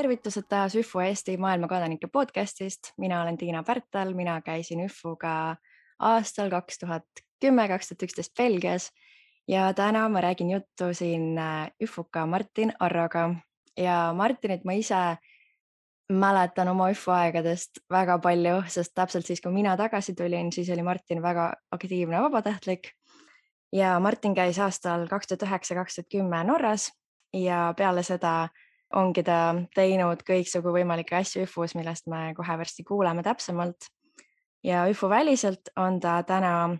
tervitused taas ÜFO Eesti maailmakodanike podcastist. Mina olen Tiina Pärtel, mina käisin ÜFO-ga aastal 2010-2011 Belgias ja täna ma räägin juttu siin ÜFO-ka Martin Arroga. Ja Martinit ma ise mäletan oma ÜFO aegadest väga palju, sest täpselt siis, kui mina tagasi tulin, siis oli Martin väga aktiivne vabatahtlik. Ja Martin käis aastal 2009-2010 Norras ja peale seda ongi ta teinud kõiksugu võimalikke asju ÜFO-s, millest me kohe varsti kuuleme täpsemalt. Ja ÜFO väliselt on ta täna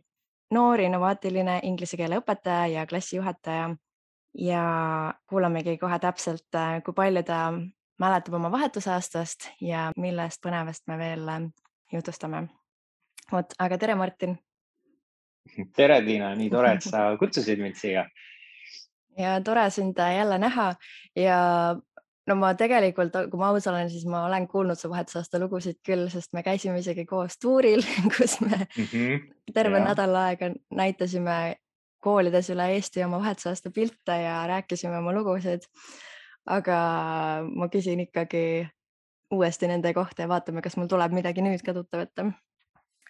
noor innovaatiline inglise keele õpetaja ja klassijuhataja. Ja kuulamegi kohe täpselt, kui palju ta mäletab oma vahetusaastast ja millest põnevast me veel jutustame. Aga tere, Martin! Tere, Tiina! Nii tore, et sa kutsusid mind siia. Ja tore sind jälle näha ja no ma tegelikult, kui ma aus olen, siis ma olen kuulnud su vahetusaasta lugusid küll, sest me käisime isegi koos tuuril, kus me terve nädal aega näitasime koolides üle Eesti oma vahetusaasta pilte ja rääkisime oma lugusid. Aga ma küsin ikkagi uuesti nende kohta ja vaatame, kas mul tuleb midagi nüüd ka tuttav ette.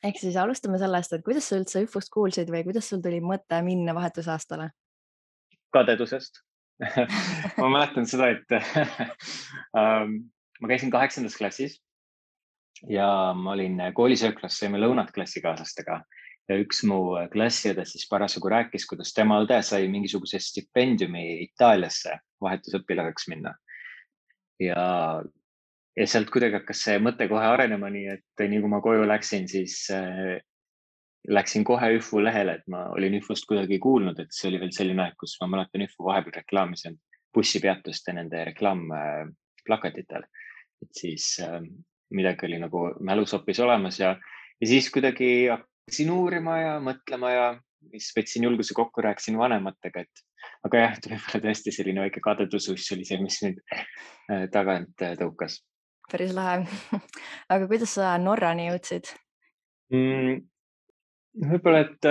Ehk siis alustame sellest, et kuidas sa üldse ÜFO-st kuulsid või kuidas sul tuli mõte minna vahetusaastale? Kadedusest. Ma mäletan seda, et ma käisin 8. klassis ja ma olin koolisööklas, saime lõunat klassikaaslastega ja üks mu klassiõde siis parasjagu rääkis, kuidas tema õde sai mingisuguse stipendiumi Itaaliasse vahetusõpilaseks minna. Ja sealt kuidagi hakkas see mõte kohe arenema, nii et nii kui ma koju läksin, siis läksin kohe ÜFO lehele, et ma olin ÜFO-st kuidagi kuulnud, et see oli veel selline aeg, kus ma mäletan ÜFO vahepeal reklaamis bussipeatuste nende reklaamplakatitel. Et siis midagi oli nagu mälus hoopis olemas ja siis kuidagi hakkasin uurima ja mõtlema ja siis võtsin julguse kokku, rääkisin vanematega, aga jah, võib-olla tõesti selline väike kadedusus oli see, mis nüüd tagant tõukas. Päris lahe. Aga kuidas sa Norrani jõudsid? Võib-olla, et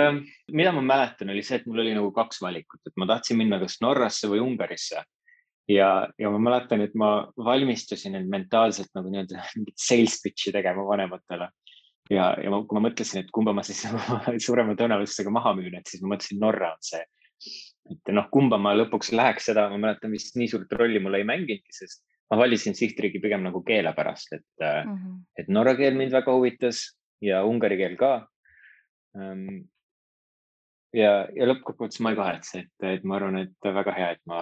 mida ma mäletan, oli see, et mul oli nagu 2 valikut, et ma tahtsin minna kas Norrasse või Ungarisse. Ja ma mäletan, et ma valmistusin end mentaalselt nagu mingit sales pitch'i tegema vanematele. Ja kui ma mõtlesin, et kumba ma siis suurema tõenäosusega maha müün, et siis ma mõtlesin, Norra on see. Et kumba ma lõpuks läheks seda, ma mäletan vist nii suurt rolli mulle ei mängingi, sest ma valisin sihtriigi pigem nagu keele pärast, et norra keel mind väga huvitas ja ungari keel ka. Ja lõppkokkuvõttes ma ei kahetse, et ma arvan, et väga hea, et ma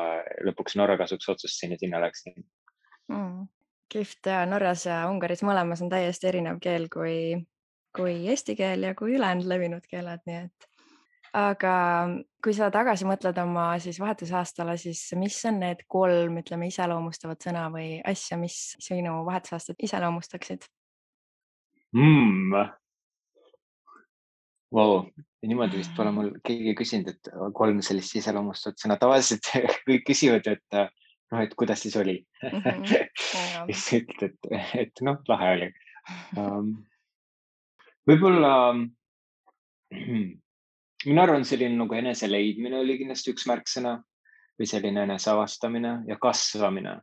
lõpuks Norra kasuks otsustasin ja sinna läksin. Kihvt ja Norras ja Ungaris mõlemas on täiesti erinev keel kui eesti keel ja kui ülejäänud levinud keeled, nii et. Aga kui sa tagasi mõtled oma siis vahetusaastale, siis mis on need 3, ütleme, iseloomustavat sõna või asja, mis sinu vahetusaastat iseloomustaksid? Wow, niimoodi vist pole mul keegi küsinud, et 3 sellist iseloomustavat sõna. Tavaliselt kõik küsivad, et kuidas siis oli. Siis ütled, et lahe oli. Võib-olla minu arvan, selline nagu enese leidmine oli kindlasti üks märksõna või selline enese avastamine ja kasvamine.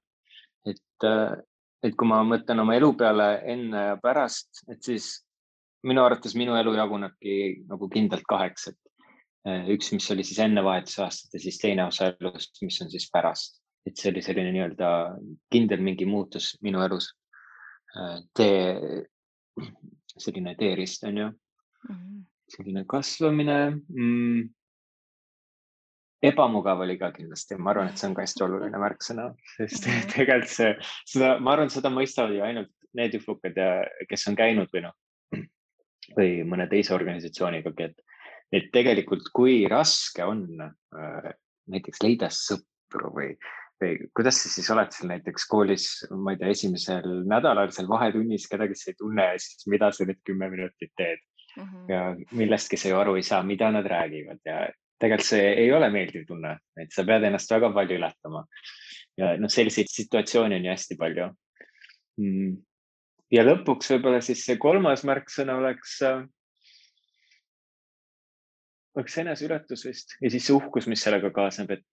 Et kui ma mõtlen oma elu peale enne ja pärast, et siis minu arvates minu elu jagunebki nagu kindlalt 2. Üks, mis oli siis enne vahetusaastat ja siis teine osa elust, mis on siis pärast. Et see oli selline nii-öelda kindel mingi muutus minu elus. Selline teerist on ju. Selline kasvamine. Ebamugav oli ka kindlasti. Ma arvan, et see on ka hästi oluline märksõna. Sest tegelikult ma arvan, seda mõistavad ju ainult need ÜFO-kad, kes on käinud või mõne teise organisatsiooniga, et tegelikult kui raske on näiteks leida sõpru või kuidas sa siis oled seal näiteks koolis, ma ei tea, esimesel nädalal seal vahetunnis kedagi sa ei tunne ja siis mida sa nüüd 10 minutit teed ja millestki sa ju aru ei saa, mida nad räägivad ja tegelikult see ei ole meeldiv tunne, et sa pead ennast väga palju ületama ja selliseid situatsioone on ju hästi palju. Ja lõpuks võib-olla siis see 3. märksõna oleks eneseületus vist ja siis see uhkus, mis sellega kaasneb, et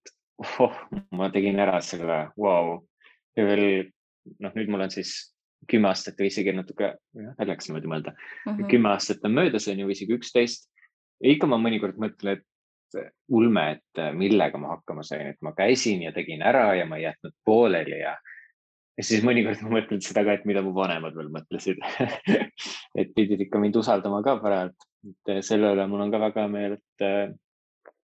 ma tegin ära selle, wow. Ja veel noh, nüüd mul on siis 10 aastat või isegi natuke, läks niimoodi mõelda, 10 aastat on möödas, on ju, isegi 11. Ja ikka ma mõnikord mõtlen, et ulme, et millega ma hakkama sain, et ma käisin ja tegin ära ja ma ei jätnud pooleli ja siis mõnikord ma mõtlen seda ka, et mida mu vanemad veel mõtlesid et pidid ikka mind usaldama ka parajalt. Selle üle mul on ka väga hea meel,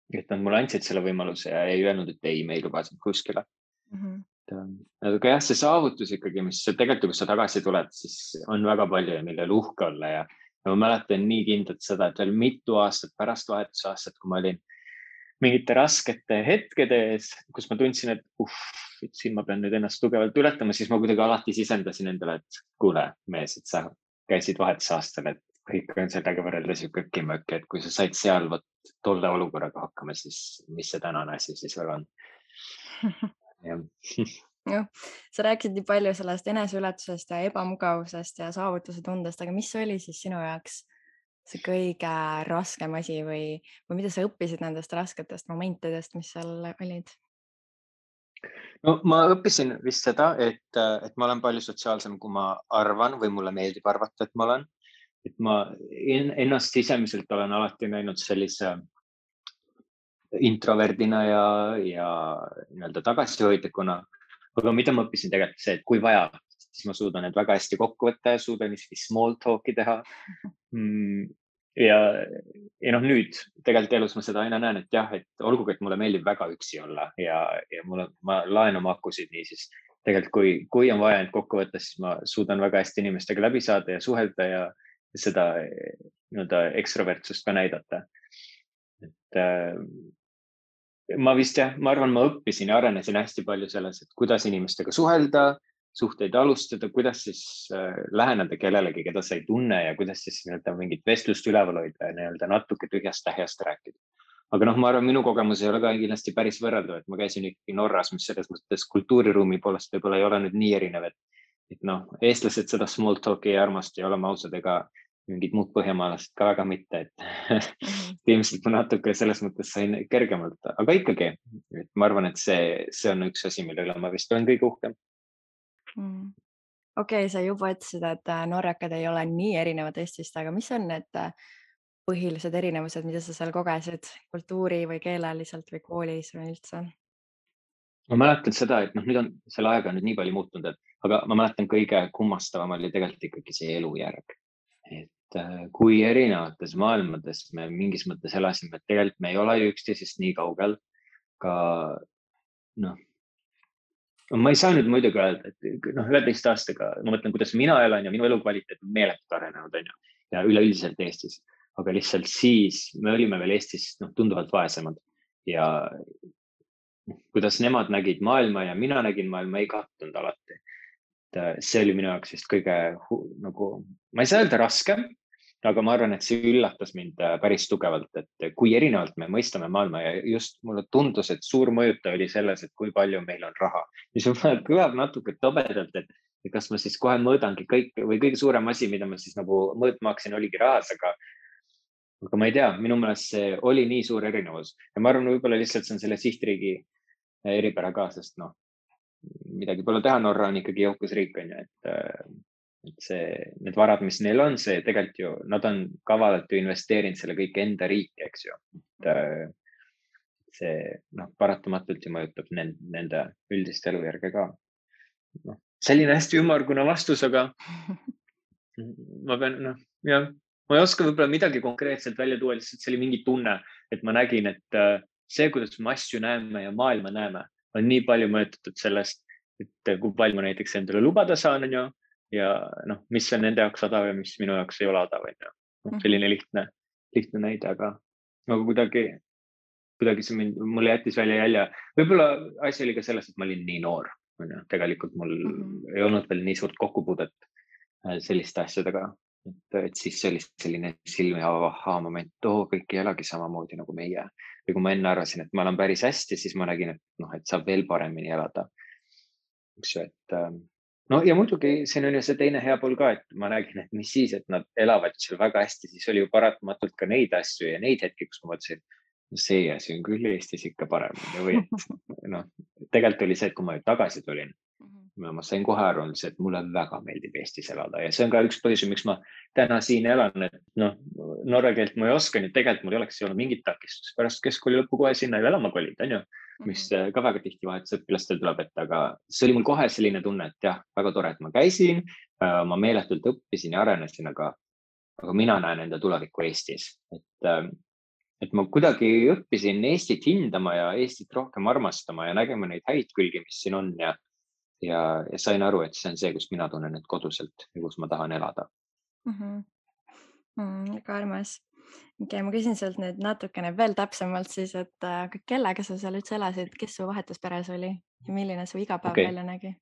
et nad mulle andsid selle võimaluse ja ei öelnud, et ei, me ei luba sind kuskile. Aga jah, see saavutus ikkagi, mis tegelikult, kui sa tagasi tuled, siis on väga palju ja millel uhke olla ja ma mäletan nii kindlalt seda, et veel mitu aastat pärast vahetusaastat, kui ma olin mingite raskete hetkede ees, kus ma tundsin, et siin ma pean nüüd ennast tugevalt ületama, siis ma kuidagi alati sisendasin endale, et kuule, mees, et sa käisid vahetusaastal, et kõik on sellega võrreldes ju kökimöök, et kui sa said seal tolle olukorraga hakkama, siis mis see tänane asi siis veel on? Jah, sa rääkisid nii palju sellest eneseületusest ja ebamugavusest ja saavutuse tundest, aga mis oli siis sinu jaoks see kõige raskem asi või mida sa õppisid nendest rasketest momentidest, mis seal olid? No ma õppisin vist seda, et ma olen palju sotsiaalsem, kui ma arvan või mulle meeldib arvata, et ma olen. Et ma ennast sisemiselt olen alati näinud sellise introverdina ja nii-öelda tagasihoidlikuna. Aga mida ma õppisin tegelikult see, et kui vaja, siis ma suudan need väga hästi kokku võtta ja suudan isegi small talk'i teha. Ja noh, nüüd tegelikult elus ma seda aina näen, et jah, et olgugi, et mulle meeldib väga üksi olla ja ma laen oma akusid nii, siis tegelikult kui on vaja end kokku võtta, siis ma suudan väga hästi inimestega läbi saada ja suhelda ja seda nii-öelda ekstrovertsust ka näidata. Et ma arvan, ma õppisin ja arenesin hästi palju selles, et kuidas inimestega suhelda, suhteid alustada, kuidas siis läheneda kellelegi, keda sa ei tunne ja kuidas siis nii-öelda mingit vestlust üleval hoida ja nii-öelda natuke tühjast tähjast rääkida. Aga noh, ma arvan, minu kogemus ei ole ka kindlasti päris võrreldav, et ma käisin ikkagi Norras, mis selles mõttes kultuuriruumi poolest võib-olla ei ole nüüd nii erinev, et noh, eestlased seda small talk'i ei armasta ja oleme ausad, ega mingid muud põhjamaalased ka väga mitte, et ilmselt ma natuke selles mõttes sain kergemalt, aga ikkagi, et ma arvan, et see on üks asi, mille üle ma vist olen kõige uhkem. Okei, sa juba ütlesid, et norrakad ei ole nii erinevad Eestist, aga mis on need põhilised erinevused, mida sa seal kogesid kultuuri või keeleliselt või koolis või üldse? Ma mäletan seda, et noh, nüüd on selle ajaga nüüd nii palju muutunud, aga ma mäletan kõige kummastavam oli tegelikult ikkagi see elujärg. Et kui erinevates maailmades me mingis mõttes elasime, et tegelikult me ei ole ju üksteisest nii kaugel ka noh, ma ei saa nüüd muidugi öelda, et noh, 11 aastaga ma mõtlen, kuidas mina elan ja minu elukvaliteet on meeletult arenenud, on ju, ja üleüldiselt Eestis, aga lihtsalt siis me olime veel Eestis tunduvalt vaesemad ja kuidas nemad nägid maailma ja mina nägin maailma, ei kattunud alati. See oli minu jaoks vist kõige nagu, ma ei saa öelda raskem, aga ma arvan, et see üllatas mind päris tugevalt, et kui erinevalt me mõistame maailma ja just mulle tundus, et suur mõjutaja oli selles, et kui palju meil on raha. Mis kõlab natuke tobedalt, et kas ma siis kohe mõõdangi kõik või kõige suurem asi, mida ma siis nagu mõõtma hakkasin, oligi rahas, aga ma ei tea, minu meelest see oli nii suur erinevus ja ma arvan, võib-olla lihtsalt see on selle sihtriigi eripära ka, sest noh, midagi pole teha, Norra on ikkagi jõukas riik, on ju, et need varad, mis neil on, see tegelikult ju, nad on kavalalt ju investeerinud selle kõik enda riiki, eks ju. See paratamatult ju mõjutab nende üldist elujärge ka. Selline hästi ümmargune vastus, aga ma pean, ma ei oska võib-olla midagi konkreetselt välja tuua, lihtsalt see oli mingi tunne, et ma nägin, et see, kuidas me asju näeme ja maailma näeme, on nii palju mõjutatud sellest, et kui palju ma näiteks endale lubada saan, on ju, ja mis on nende jaoks odav ja mis minu jaoks ei ole odav, on ju. Selline lihtne näide, aga kuidagi see mulle jättis välja jälje. Võib-olla asi oli ka selles, et ma olin nii noor. Tegelikult mul ei olnud veel nii suurt kokkupuudet selliste asjadega. Et siis see oli selline silmi avav moment, kõik ei elagi samamoodi nagu meie. Või kui ma enne arvasin, et ma olen päris hästi, siis ma nägin, et saab veel paremini elada. Ja muidugi siin on ju see teine hea pool ka, et ma nägin, et mis siis, et nad elavad seal väga hästi, siis oli ju paratamatult ka neid asju ja neid hetki, kus ma mõtlesin, see asi on küll Eestis ikka parem. Või tegelikult oli see, et kui ma tagasi tulin, ma sain kohe aru, et mulle väga meeldib Eestis elada ja see on ka üks põhjus, miks ma täna siin elan, et noh, norra keelt ma ei oska, nii et tegelikult mul ei oleks olnud mingit takistust pärast keskkooli lõppu kohe sinna ju elama kolida, on ju, mis ka väga tihti vahetusõpilastel tuleb ette, aga see oli mul kohe selline tunne, et jah, väga tore, et ma käisin, ma meeletult õppisin ja arenesin, aga mina näen enda tulevikku Eestis, et ma kuidagi õppisin Eestit hindama ja Eestit rohkem armastama ja nägema neid häid külgi, mis siin on ja sain aru, et see on see, kus mina tunnen end koduselt ja kus ma tahan elada. Väga armas. Okei, ma küsin sult nüüd natukene veel täpsemalt siis, et kellega sa seal üldse elasid, kes su vahetusperes oli ja milline su igapäev välja nägi?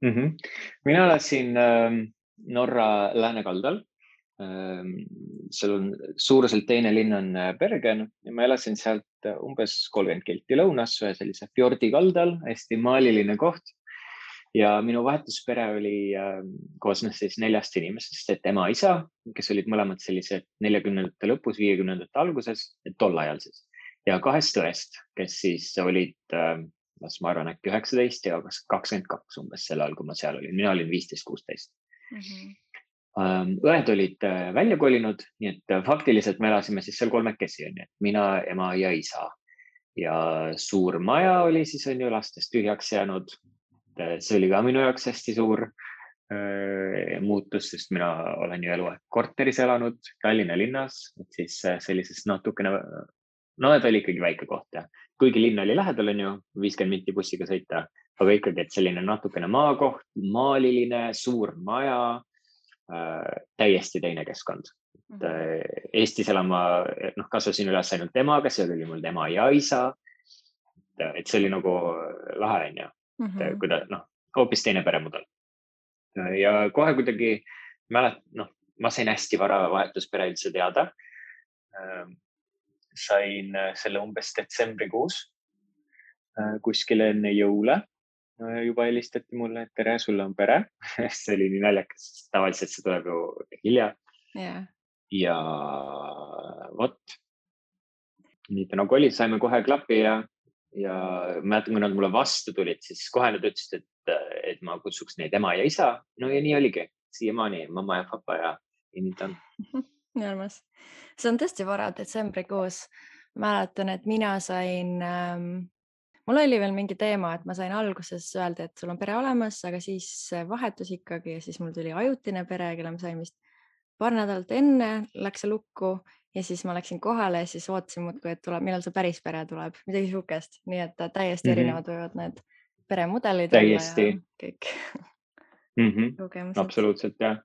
Mina elasin Norra läänekaldal. Seal on suuruselt teine linn on Bergen ja ma elasin sealt umbes 30 kilti lõunas ühe sellise fjordi kaldal, hästi maaliline koht. Ja minu vahetuspere oli koosnes siis 4 inimesest, et ema, isa, kes olid mõlemad sellised 40ndate lõpus, 50ndate alguses, tol ajal siis. Ja 2 õest, kes siis olid, ma arvan, äkki 19 ja 22 umbes sel ajal, kui ma seal olin. Mina olin 15-16. Õed olid välja kolinud, nii et faktiliselt me elasime siis seal 3-kesi, mina, ema ja isa. Ja suur maja oli siis on ju lastest tühjaks jäänud. See oli ka minu jaoks hästi suur muutus, sest mina olen ju eluaeg korteris elanud Tallinna linnas, et siis sellisest natukene, no ta oli ikkagi väike koht ja kuigi linn oli lähedal, on ju 50 minti bussiga sõita, aga ikkagi, et selline natukene maakoht, maaliline, suur maja, täiesti teine keskkond. Eestis elama, kasvasin üles ainult temaga, see oli mul tema ja isa, et see oli nagu lahe, on ju. Hoopis teine peremudel. Ja kohe kuidagi ma sain hästi vara vahetuspere üldse teada. Sain selle umbes detsembrikuus kuskil enne jõule. Juba helistati mulle, et tere, sulle on pere. See oli nii naljakas, tavaliselt see tuleb ju hilja. Ja vot. Nii ta nagu oli, saime kohe klapi ja mäletan, kui nad mulle vastu tulid, siis kohe nad ütlesid, et ma kutsuks neid ema ja isa. No ja nii oligi, siiamaani mamma ja papa ja nii ta on. Nii armas. See on tõesti vara detsembrikuus. Mäletan, et mina sain, mul oli veel mingi teema, et ma sain alguses öelda, et sul on pere olemas, aga siis vahetus ikkagi ja siis mul tuli ajutine pere, kelle ma sain vist paar nädalat enne, läks see lukku. Ja siis ma läksin kohale ja siis ootasin muudkui, et tuleb, millal see päris pere tuleb, midagi sihukest. Nii et täiesti erinevad võivad need peremudelid täiesti. olla ja kõik kogemused. Absoluutselt, jah.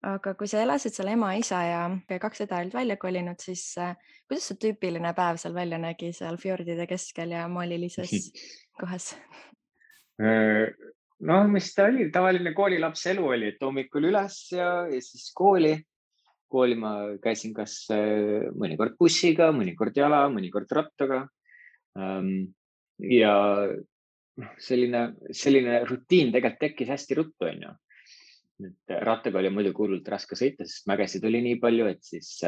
Aga kui sa elasid seal ema, isa ja 2 õde olid välja kolinud, siis kuidas see tüüpiline päev seal välja nägi seal fjordide keskel ja maalilises kohas? Mis ta oli, tavaline koolilaps elu oli, et hommikul üles ja siis kooli. Kooli ma käisin kas mõnikord bussiga, mõnikord jala, mõnikord rattaga. Ja selline rutiin tegelikult tekkis hästi ruttu, on ju. Rattaga oli muidugi hullult raske sõita, sest mägesid oli nii palju, et siis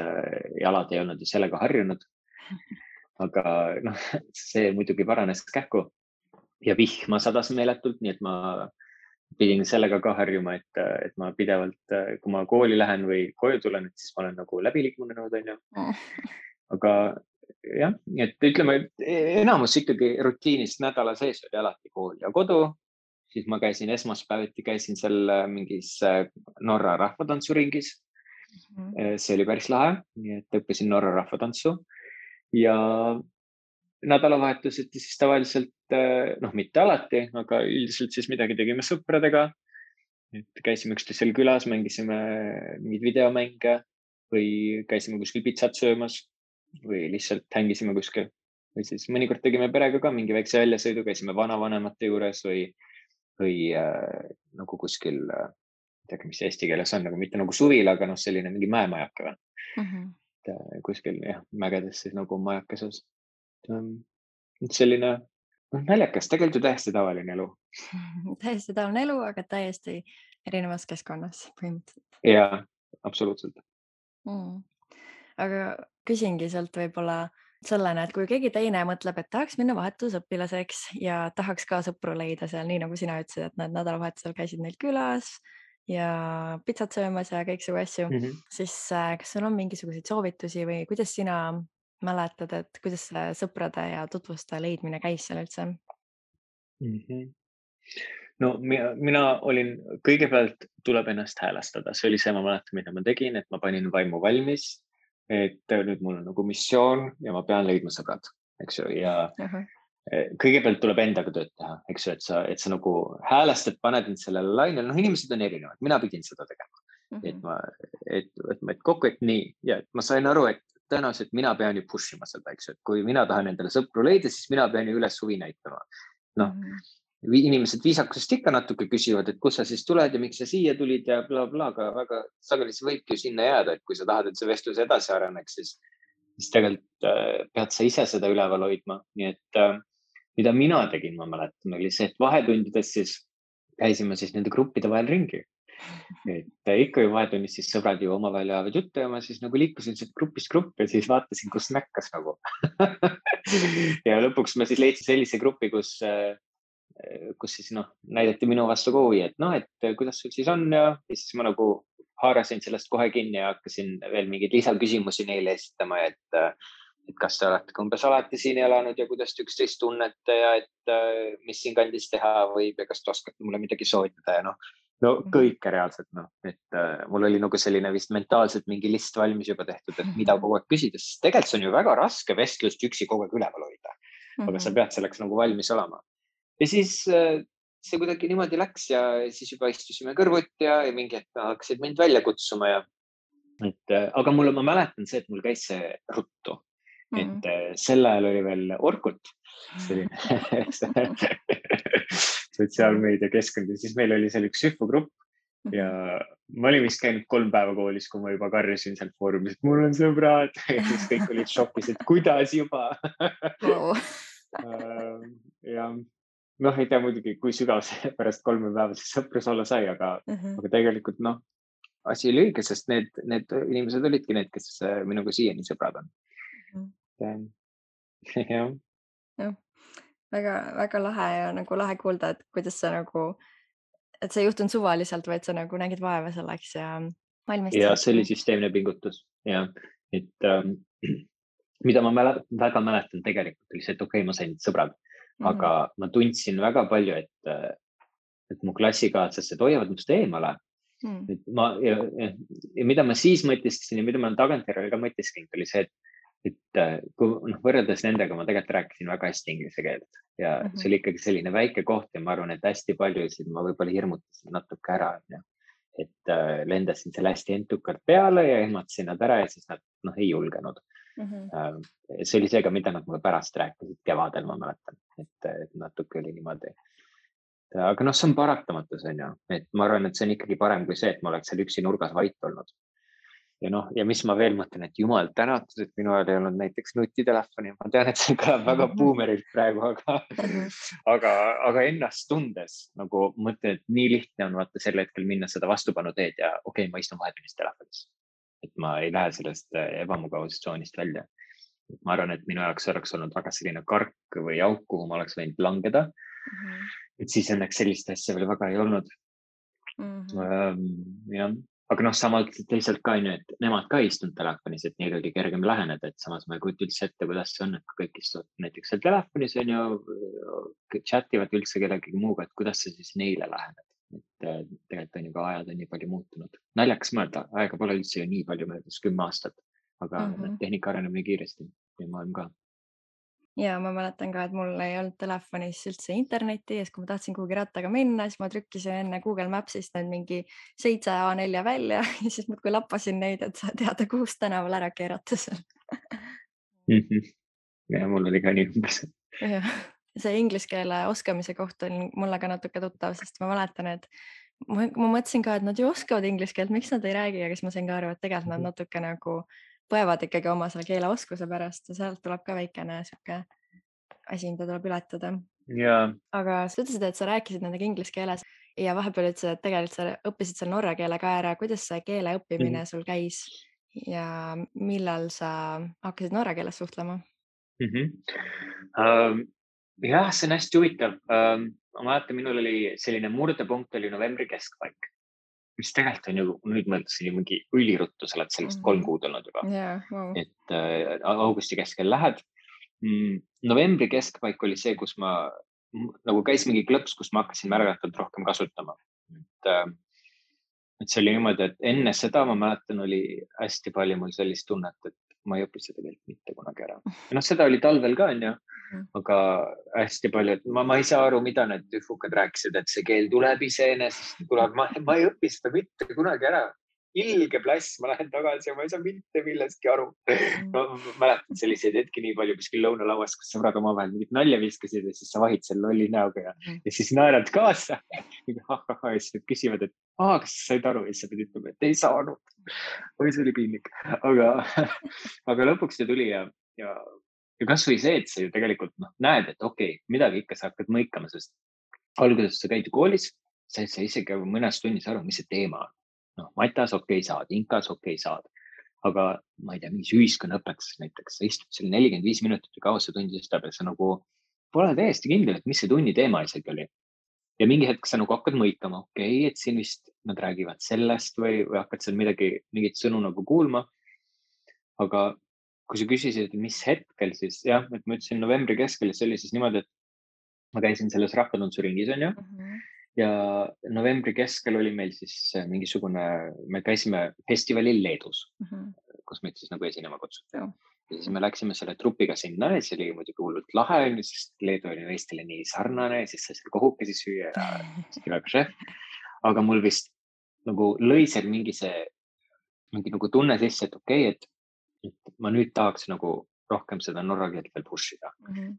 jalad ei olnud ju sellega harjunud. Aga see muidugi paranes kähku ja vihma sadas meeletult, nii et ma pidin sellega ka harjuma, et ma pidevalt, kui ma kooli lähen või koju tulen, et siis ma olen nagu läbi liikunud, on ju. Aga jah, et ütleme, et enamus ikkagi rutiinist nädala sees oli alati kool ja kodu. Siis ma käisin esmaspäeviti, käisin seal mingis Norra rahvatantsuringis. See oli päris lahe, nii et õppisin Norra rahvatantsu ja nädalavahetuseti siis tavaliselt, mitte alati, aga üldiselt siis midagi tegime sõpradega. Et käisime üksteisel külas, mängisime mingeid videomänge või käisime kuskil pitsat söömas või lihtsalt hängisime kuskil. Või siis mõnikord tegime perega ka mingi väikse väljasõidu, käisime vanavanemate juures või nagu kuskil, mis eesti keeles on, nagu mitte nagu suvil, aga selline mingi mäemajake või. Kuskil mägedes siis nagu majakeses. Selline naljakas, tegelikult ju täiesti tavaline elu. Täiesti tavaline elu, aga täiesti erinevas keskkonnas põhimõtteliselt. Jaa, absoluutselt. Aga küsingi sealt võib-olla sellena, et kui keegi teine mõtleb, et tahaks minna vahetusõpilaseks ja tahaks ka sõpru leida seal, nii nagu sina ütlesid, et nad nädalavahetusel käisid neil külas ja pitsat söömas ja kõiksugu asju, Mhm. siis kas sul on mingisuguseid soovitusi või kuidas sina mäletad, et kuidas see sõprade ja tutvuste leidmine käis seal üldse? Mhm. No mina olin, kõigepealt tuleb ennast häälestada, see oli see, ma mäletan, mida ma tegin, et ma panin vaimu valmis, et nüüd mul on nagu missioon ja ma pean leidma sõbrad, eks ju, ja Ahah. kõigepealt tuleb endaga tööd teha, eks ju, et sa nagu häälestad, paned end sellele lainele, noh, inimesed on erinevad, mina pidin seda tegema, et Mhm. ma, et kokku, et nii ja et ma sain aru, et tõenäoliselt mina pean ju push ima seda, eks ju, et kui mina tahan endale sõpru leida, siis mina pean ju üles huvi näitama. Noh, Mhm. inimesed viisakusest ikka natuke küsivad, et kust sa siis tuled ja miks sa siia tulid ja blablabla, aga väga sageli see võibki ju sinna jääda, et kui sa tahad, et see vestlus edasi areneks, siis tegelikult pead sa ise seda üleval hoidma. Nii et mida mina tegin, ma mäletan, oli see, et vahetundides siis käisime siis nende gruppide vahel ringi. Et ikka ju vahetunnis siis sõbrad ju omavahel ajavad juttu ja ma siis nagu liikusin sealt grupist gruppi ja siis vaatasin, kus näkkas nagu. ja lõpuks ma siis leidsin sellise grupi, kus siis noh, näidati minu vastu ka huvi, et noh, et kuidas sul siis on ja siis ma nagu haarasin sellest kohe kinni ja hakkasin veel mingeid lisaküsimusi neile esitama, et kas te olete umbes alati siin elanud ja kuidas te üksteist tunnete ja et mis siinkandis teha võib ja kas te oskate mulle midagi soovitada ja no Mhm. kõike reaalselt noh, et mul oli nagu selline vist mentaalselt mingi list valmis juba tehtud, et mida kogu aeg küsida, sest tegelikult see on ju väga raske vestlust üksi kogu aeg üleval hoida, aga sa Mhm. pead selleks nagu valmis olema. Ja siis see kuidagi niimoodi läks ja siis juba istusime kõrvuti ja mingi hetk hakkasid mind välja kutsuma ja aga ma mäletan see, et mul käis see ruttu, Mhm. et sel ajal oli veel Orkut, selline sotsiaalmeediakeskkond ja siis meil oli seal üks sühvugrupp ja Mhm. ma olin vist käinud 3 päeva koolis, kui ma juba karjusin sealt foorumis, et mul on sõbrad ja siis kõik olid šokis, et kuidas juba Vau. ja noh, ei tea muidugi, kui sügav see pärast 3 päeva see sõprus olla sai, Mhm. aga tegelikult noh, asi oli õige, sest need inimesed olidki need, kes minuga siiani sõbrad on. Mhm. Jah. Jah, väga-väga lahe ja nagu lahe kuulda, et kuidas sa nagu, et see ei juhtunud suvaliselt, vaid sa nagu nägid vaeva selleks ja Ja valmistusid. see oli süsteemne pingutus ja et mida ma väga mäletan tegelikult oli see, et okei, ma sain sõbrad, Mhm. aga ma tundsin väga palju, et mu klassikaaslased hoiavad minust eemale. Mm. Et ja mida ma siis mõtisklesin ja mida ma olen tagantjärele ka mõtisklenud, oli see, et kui noh, võrreldes nendega ma tegelikult rääkisin väga hästi inglise keelt ja see Mhm. oli ikkagi selline väike koht ja ma arvan, et hästi paljusid ma võib-olla hirmutasin natuke ära, onju. Et lendasin selle hästi entukalt peale ja ehmatasin nad ära ja siis nad noh, ei julgenud. Mhm. See oli see ka, mida nad mulle pärast rääkisid kevadel, ma mäletan, et natuke oli niimoodi. Aga noh, see on paratamatus, on ju, et ma arvan, et see on ikkagi parem kui see, et ma oleks seal üksi nurgas vait olnud. Ja noh, ja mis ma veel mõtlen, et jumal tänatud, et minu ajal ei olnud näiteks nutitelefoni. Ma tean, et see kõlab väga buumerilt praegu, Mhm. aga ennast tundes nagu mõtlen, et nii lihtne on vaata sel hetkel minna seda vastupanu teed ja okei, ma istun vahetunnis telefonis. Et ma ei lähe sellest ebamugavustsoonist välja. Ma arvan, et minu jaoks oleks olnud väga selline kark või auk, kuhu ma oleks võinud langeda. Mhm. Et siis õnneks sellist asja veel väga ei olnud. Mhm. Jah, aga noh, samalt teisalt ka onju, et nemad ka ei istunud telefonis, et neil oli kergem läheneda, et samas ma ei kujuta üldse ette, kuidas see on, et kui kõik istuvad näiteks seal telefonis onju, chat ivad üldse kellegagi muuga, et kuidas sa siis neile lähened. et tegelikult on ju ka ajad on nii palju muutunud. Naljakas mõelda, aega pole üldse ju nii palju möödas, 10 aastat, aga Mhm. tehnika areneb nii kiiresti ja maailm ka. Ja ma mäletan ka, et mul ei olnud telefonis üldse internetti ja siis, kui ma tahtsin kuhugi rattaga minna, siis ma trükkisin enne Google Maps'ist need mingi 7 A4 välja ja siis muudkui lappasin neid, et teada, kuhust tänaval ära keerata seal. ja mul oli ka nii umbes. Jah, see inglise keele oskamise koht on mulle ka natuke tuttav, sest ma mäletan, et ma mõtlesin ka, et nad ju oskavad inglise keelt, miks nad ei räägi, aga siis ma sain ka aru, et tegelikult nad natuke nagu põevad ikkagi oma selle keeleoskuse pärast ja sealt tuleb ka väikene sihuke asi, mida tuleb ületada. ja Aga sa ütlesid, et sa rääkisid nendega inglise keeles ja vahepeal ütlesid, et tegelikult sa õppisid seal norra keele ka ära. Kuidas see keele õppimine sul käis ja millal sa hakkasid norra keeles suhtlema? Jah, see on hästi huvitav. Ma mäletan, minul oli selline murdepunkt oli novembri keskpaik, mis tegelikult on ju, nüüd mõtlesin ju mingi üliruttu, sa oled sellest 3 kuud olnud juba. Wow. Et augusti keskel lähed. Novembri keskpaik oli see, kus ma nagu käis mingi klõps, kus ma hakkasin märgatavalt rohkem kasutama. Et see oli niimoodi, et enne seda ma mäletan, oli hästi palju mul sellist tunnet, et ma ei õpi seda keelt mitte kunagi ära. Ja seda oli talvel ka, on ju, aga hästi palju, et ma ei saa aru, mida need üfukad rääkisid, et see keel tuleb iseenesest, tuleb, ma ei õpi seda mitte kunagi ära. Ilge plass, ma lähen tagasi ja ma ei saa mitte millestki aru. No, mäletan selliseid hetki nii palju kuskil lõunalauas, kus sõbrad omavahel mingit nalja viskasid ja siis sa vahid selle lolli näoga ja siis naerad kaasa. Ja siis küsivad, et kas sa said aru ja siis sa pidid ütlema, et ei saanud. Või see oli piinlik. Aga lõpuks see tuli ja kasvõi see, et sa ju tegelikult näed, et okei, midagi ikka sa hakkad mõikama, sest alguses sa käid koolis, sa ei saa isegi mõnes tunnis aru, mis see teema on. Matas saad, inkas saad, aga ma ei tea, mingis ühiskonnaõpetuses näiteks, sa istud seal 45 minutit või kaua see tundi istab ja sa nagu pole täiesti kindel, et mis see tunni teema isegi oli. Ja mingi hetk sa nagu hakkad mõikama, et siin vist nad räägivad sellest või hakkad seal mingit sõnu nagu kuulma. Aga kui sa küsisid, mis hetkel, siis jah, et ma ütlesin novembri keskel, see oli siis niimoodi, et ma käisin selles rahvatantsuringis, on ju. Ja novembri keskel oli meil siis mingisugune, me käisime festivalil Leedus, kus meid siis nagu esinema kutsuti. Ja siis me läksime selle trupiga sinna ja see oli muidugi hullult lahe, sest Leedu oli Eestile nii sarnane ja siis sai seal kohukesi süüa ja väga šef. Aga mul vist nagu lõi seal mingi nagu tunne sisse, et et ma nüüd tahaks nagu rohkem seda norra keelt veel push ida.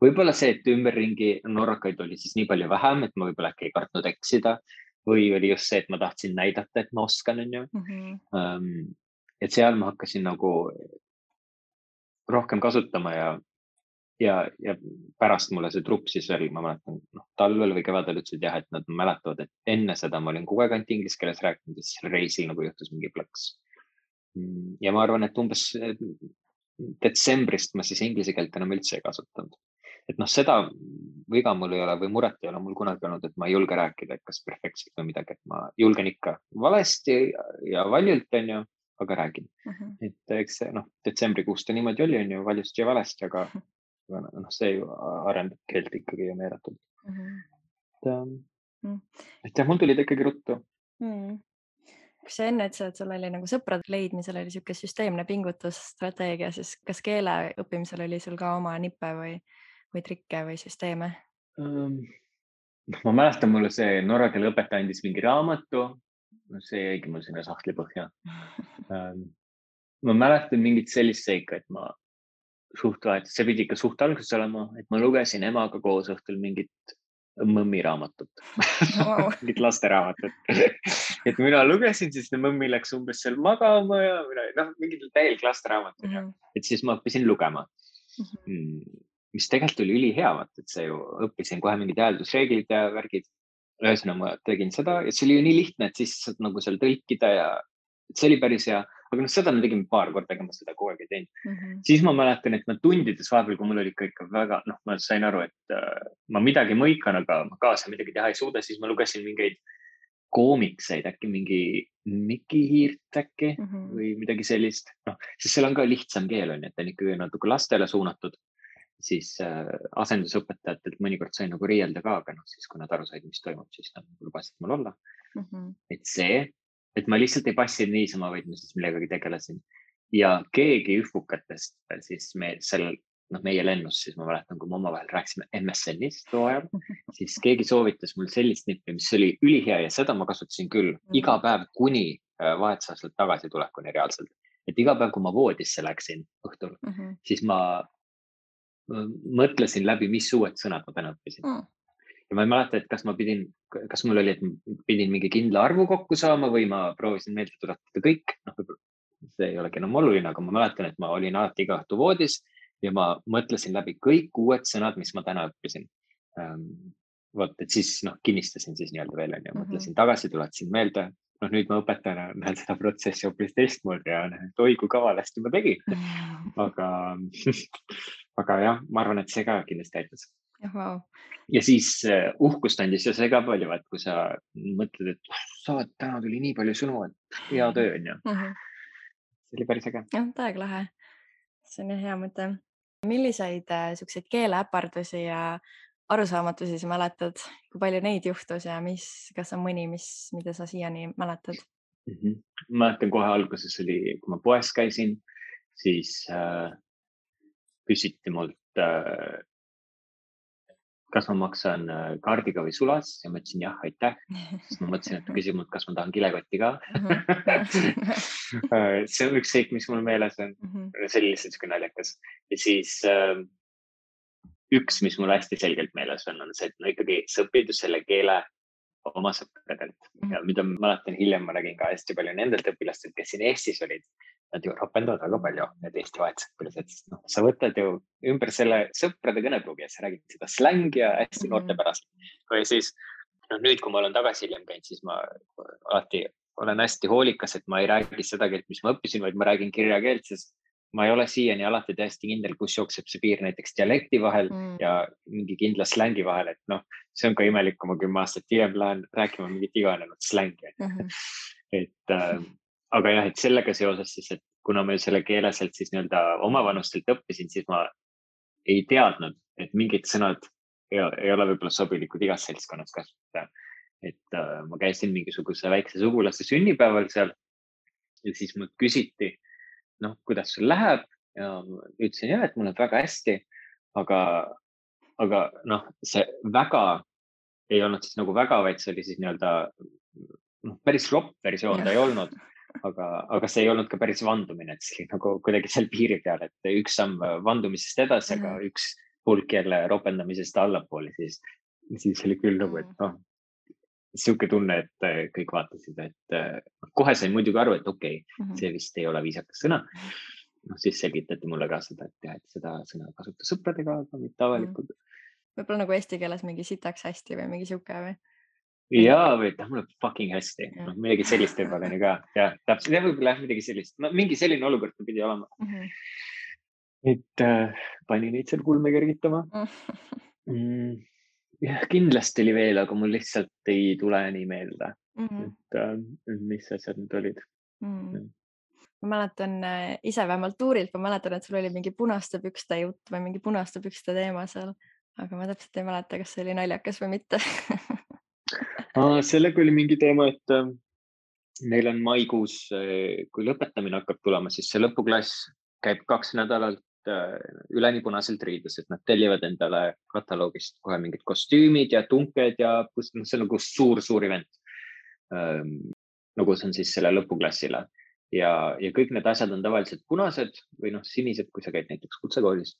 Võib-olla see, et ümberringi norrakaid oli siis nii palju vähem, et ma võib-olla äkki ei kartnud eksida või oli just see, et ma tahtsin näidata, et ma oskan, on ju. Et seal ma hakkasin nagu rohkem kasutama ja pärast mulle see trupp siis veel, ma mäletan, talvel või kevadel ütlesid jah, et nad mäletavad, et enne seda ma olin kogu aeg ainult inglise keeles rääkinud ja siis reisil nagu juhtus mingi plõks. Ja ma arvan, et umbes detsembrist ma siis inglise keelt enam üldse ei kasutanud. Et seda viga mul ei ole või muret ei ole mul kunagi olnud, et ma ei julge rääkida, et kas perfektselt või midagi, et ma julgen ikka valesti ja valjult, on ju, aga räägin. Et eks see, detsembrikuust ta niimoodi oli, on ju, valjusti ja valesti, aga see ju arendab keelt ikkagi ja meeletult. Et jah, mul tuli ta ikkagi ruttu. Kas sa enne ütlesid, et sul oli nagu sõprade leidmisel oli siuke süsteemne pingutusstrateegia, siis kas keele õppimisel oli sul ka oma nippe või trikke või süsteeme? Ma mäletan, mulle see norra keele õpetaja andis mingi raamatu, see jäigi mul sinna sahtli põhja. Ma mäletan mingit sellist seika, et ma see pidi ikka suht alguses olema, et ma lugesin emaga koos õhtul mingit mõmmi raamatut, mingit lasteraamatut. Et mina lugesin, siis mõmmi läks umbes seal magama ja mingid täielik lasteraamatut. Et siis ma õppisin lugema, mis tegelikult oli ülihea, et see ju õppisin kohe mingid hääldusreeglid ja värgid. Ühesõnaga ma tegin seda ja see oli ju nii lihtne, et siis saad nagu seal tõlkida ja see oli päris hea. Aga seda me tegime paar korda, ega ma seda kogu aeg ei teinud. Siis ma mäletan, et ma tundides vahepeal, kui mul oli ikka väga, ma sain aru, et ma midagi mõikan, aga ma kaasa midagi teha ei suuda, siis ma lugesin mingeid koomikseid, äkki mingi Miki Hiirt äkki või midagi sellist. Siis seal on ka lihtsam keel, on, et on ikkagi natuke lastele suunatud. Siis asendusõpetajatelt mõnikord sain nagu riielda ka, aga siis kui nad aru said, mis toimub, siis nad lubasid mul olla. Et ma lihtsalt ei passinud niisama, vaid ma siis millegagi tegelesin. Ja keegi üfukatest siis meie lennus, siis ma mäletan, kui me omavahel rääkisime MSN-ist too ajal, siis keegi soovitas mul sellist nippi, mis oli ülihea ja seda ma kasutasin küll iga päev kuni vahetusaastalt tagasi tulekuni reaalselt. Et iga päev, kui ma voodisse läksin õhtul, siis ma mõtlesin läbi, mis uued sõnad ma täna õppisin. Ja ma ei mäleta, et kas mul oli, et ma pidin mingi kindla arvu kokku saama või ma proovisin meelde tuletada kõik. See ei olegi enam oluline, aga ma mäletan, et ma olin alati iga õhtu voodis ja ma mõtlesin läbi kõik uued sõnad, mis ma täna õppisin. Et siis kinnistasin siis nii-öelda veel ja mõtlesin tagasi, tuletasin meelde. Nüüd ma õpetajana näen seda protsessi hoopis teistmoodi ja oi kui kavalasti ma tegin. aga jah, ma arvan, et see ka kindlasti aitas. Wow. Ja siis uhkust andis ja see ka palju, et kui sa mõtled, et täna tuli nii palju sõnu, et hea töö on ju. See oli päris äge. Jah, täiega lahe. See on hea mõte. Milliseid siukseid keeleäpardusi ja arusaamatusi sa mäletad? Kui palju neid juhtus ja kas on mõni, mida sa siiani mäletad? Ma mäletan kohe alguses oli, kui ma poes käisin, siis küsiti mult, kas ma maksan kaardiga või sulas ja ma ütlesin jah, aitäh. Siis ma mõtlesin, et küsib mult, kas ma tahan kilekotti ka. See on üks seik, mis mul meeles on. See oli lihtsalt siuke naljakas. Ja siis üks, mis mul hästi selgelt meeles on see, et no ikkagi sa õpid selle keele oma sõpradelt ja mida ma mäletan hiljem, ma räägin ka hästi palju nendelt õpilastelt, kes siin Eestis olid. Nad ju ropendavad väga palju, need Eesti vahetusõpilased, sest sa võtad ju ümber selle sõprade kõnepruugi ja sa räägid seda slängi ja hästi noortepärast. Või siis nüüd, kui ma olen tagasi hiljem käinud, siis ma alati olen hästi hoolikas, et ma ei räägi seda keelt, mis ma õppisin, vaid ma räägin kirjakeelt, sest ma ei ole siiani alati täiesti kindel, kus jookseb see piir näiteks dialekti vahel ja mingi kindla slängi vahel, et see on ka imelik, kui ma 10 aastat hiljem lähen rääkima mingit iganenud slängi. Aga jah, et sellega seoses siis, et kuna ma selle keele sealt siis nii-öelda omavanustelt õppisin, siis ma ei teadnud, et mingid sõnad ei ole võib-olla sobilikud igas seltskonnas kasutada. Et ma käisin mingisuguse väikse sugulaste sünnipäeval seal ja siis mult küsiti, kuidas sul läheb ja ütlesin jah, et mul on väga hästi, aga see väga ei olnud siis nagu väga, vaid see oli siis nii-öelda päris ropp versioon ta ei olnud, aga see ei olnud ka päris vandumine, et see oli nagu kuidagi seal piiri peal, et üks samm vandumisest edasi, aga üks hulk jälle ropendamisest allapoole, siis oli küll nagu, et siuke tunne, et kõik vaatasid, et kohe sain muidugi aru, et okei, see vist ei ole viisakas sõna. Siis selgitati mulle ka seda, et seda sõna kasuta sõpradega, aga mitte avalikult. Võib-olla nagu eesti keeles mingi sitaks hästi või mingi siuke või? Jaa, või mul on fucking hästi. Midagi sellist võib-olla ka. Ja täpselt, ja võib-olla midagi sellist. Mingi selline olukord pidi olema. Et pani neid seal kulme kergitama. Jah, kindlasti oli veel, aga mul lihtsalt ei tule nii meelde, et mis asjad need olid. Ma mäletan ise vähemalt tuurilt, ma mäletan, et sul oli mingi punaste pükste jutt või mingi punaste pükste teema seal, aga ma täpselt ei mäleta, kas see oli naljakas või mitte. Sellega oli mingi teema, et neil on maikuus, kui lõpetamine hakkab tulema, siis see lõpuklass käib 2 nädalat üleni punaselt riides, et nad tellivad endale kataloogist kohe mingid kostüümid ja tunked ja see on nagu suur event. Nagu see on siis selle lõpuklassile ja kõik need asjad on tavaliselt punased või sinised, kui sa käid näiteks kutsekoolis.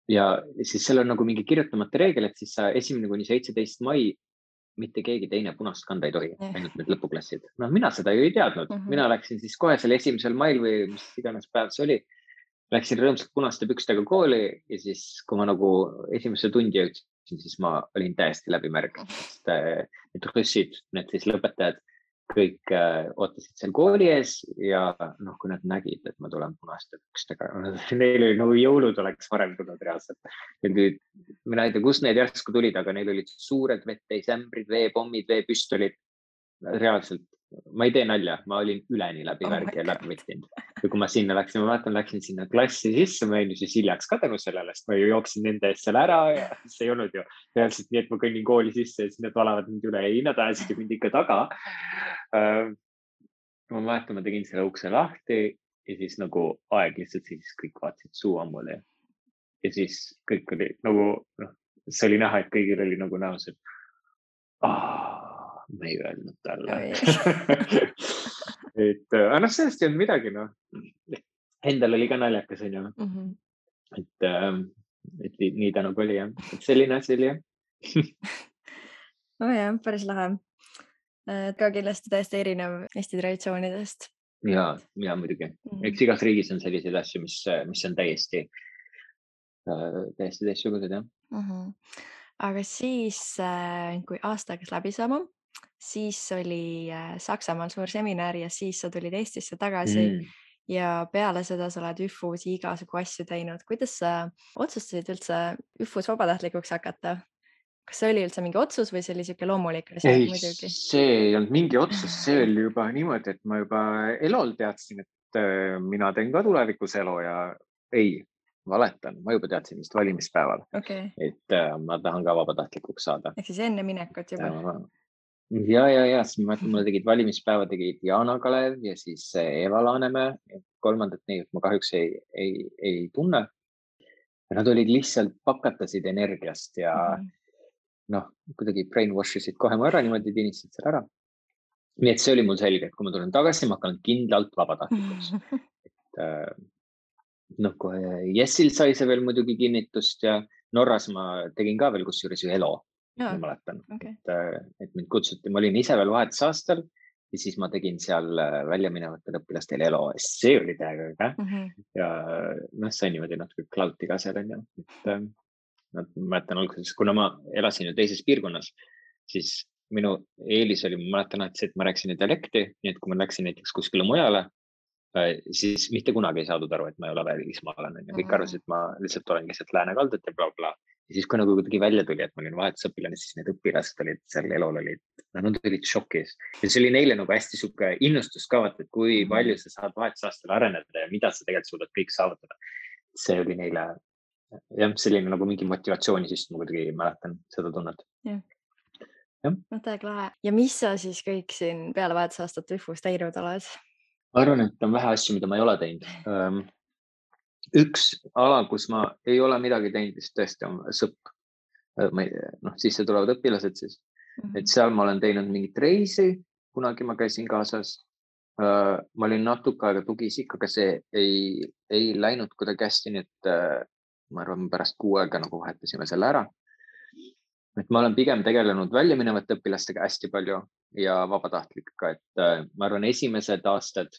Ja siis seal on nagu mingi kirjutamata reegel, et siis sa 1. kuni 17. mai mitte keegi teine punast kanda ei tohi, ainult need lõpuklassid. Mina seda ju ei teadnud. Mina läksin siis kohe selle 1. mail või mis iganes päev see oli. Läksin rõõmsalt punaste pükstega kooli ja siis, kui ma nagu esimesse tundi jõudsin, siis ma olin täiesti läbimärg. Need russid, need siis lõpetajad, kõik ootasid seal kooli ees ja kui nad nägid, et ma tulen punaste pükstega, neil oli nagu jõulud oleks varem tulnud reaalselt. Mina ei tea, kus need järsku tulid, aga neil olid suured vetteisämbrid, veepommid, veepüstolid. Reaalselt, ma ei tee nalja, ma olin üleni läbi värgi ja läbi võttinud. Ja kui ma sinna läksin, ma mäletan, läksin sinna klassi sisse, ma olin siis hiljaks ka tänu sellele, sest ma ju jooksin nende eest seal ära ja see ei olnud ju reaalselt nii, et ma kõnnin kooli sisse ja siis nad valavad mind üle. Ei, nad ajasid mind ikka taga. Ma mäletan, ma tegin selle ukse lahti ja siis nagu aeg lihtsalt siis kõik vaatasid suu ammule. Ja siis kõik oli nagu, see oli näha, et kõigil oli nagu näos, et ma ei öelnud talle. Et sellest ei olnud midagi, Endal oli ka naljakas, on ju. Et nii ta nagu oli, jah. Et selline asi oli, jah. Jah, päris lahe. Ka kindlasti täiesti erinev Eesti traditsioonidest. Ja muidugi. Eks igas riigis on selliseid asju, mis on täiesti teistsugused, jah. Aga siis, kui aasta hakkas läbi saama, siis oli Saksamaal suur seminar ja siis sa tulid Eestisse tagasi ja peale seda sa oled ÜFU-s igasugu asju teinud. Kuidas sa otsustasid üldse ÜFU-s vabatahtlikuks hakata? Kas see oli üldse mingi otsus või see oli siuke loomulik või sa Ei, muidugi? see ei olnud mingi otsus, see oli juba niimoodi, et ma juba elol teadsin, et mina teen ka tulevikus elu ja ei, valetan, ma juba teadsin vist valimispäeval, Okei. et ma tahan ka vabatahtlikuks saada. Ehk siis enne minekut juba. Ja, siis ma mäletan, mulle tegid valimispäeva, tegid Jana Kalev ja siis Eva Laanemäe. Kolmandat neid ma kahjuks ei tunne. Nad olid lihtsalt pakatasid energiast ja noh, kuidagi brainwash isid kohe mu ära, niimoodi tinistasid selle ära. Nii et see oli mul selge, et kui ma tulen tagasi, ma hakkan kindlalt vabatahtlikuks. Noh, kohe Jessil sai see veel muidugi kinnitust ja Norras ma tegin ka veel kusjuures ju ELO. Ma mäletan, et mind kutsuti, ma olin ise veel vahetusaastal ja siis ma tegin seal väljaminevatel õpilastel ELO. See oli täiega ja noh, sai niimoodi natuke klauti ka seal on ju. Ma mäletan alguses, kuna ma elasin ju teises piirkonnas, siis minu eelis oli, ma mäletan, et ma rääkisin dialekti, nii et kui ma läksin näiteks kuskile mujale, siis mitte kunagi ei saadud aru, et ma ei ole välismaalane. Kõik arvasid, et ma lihtsalt olen lihtsalt läänekaldet ja bla. Ja siis kui nagu kuidagi välja tuli, et ma olin vahetusõpilane, siis need õpilased olid seal ELO-l nad olid šokis. Ja see oli neile nagu hästi siuke innustus ka, et kui palju sa saad vahetusaastal areneda ja mida sa tegelikult suudad kõik saavutada. See oli neile jah, selline nagu mingi motivatsiooni, siis ma kuidagi mäletan seda tunnet. No täiega lahe. Ja mis sa siis kõik siin peale vahetusaastat ÜFU-s teinud oled? Ma arvan, et on vähe asju, mida ma ei ole teinud. Üks ala, kus ma ei ole midagi teinud, siis tõesti on SõP. Sisse tulevad õpilased siis. Et seal ma olen teinud mingit reisi, kunagi ma käisin kaasas. Ma olin natuke aega tugiisik, aga see ei läinud kuidagi hästi, nii et ma arvan, pärast 6 aega nagu vahetasime selle ära. Et ma olen pigem tegelenud väljaminevate õpilastega hästi palju ja vabatahtlikega, et ma arvan, esimesed aastad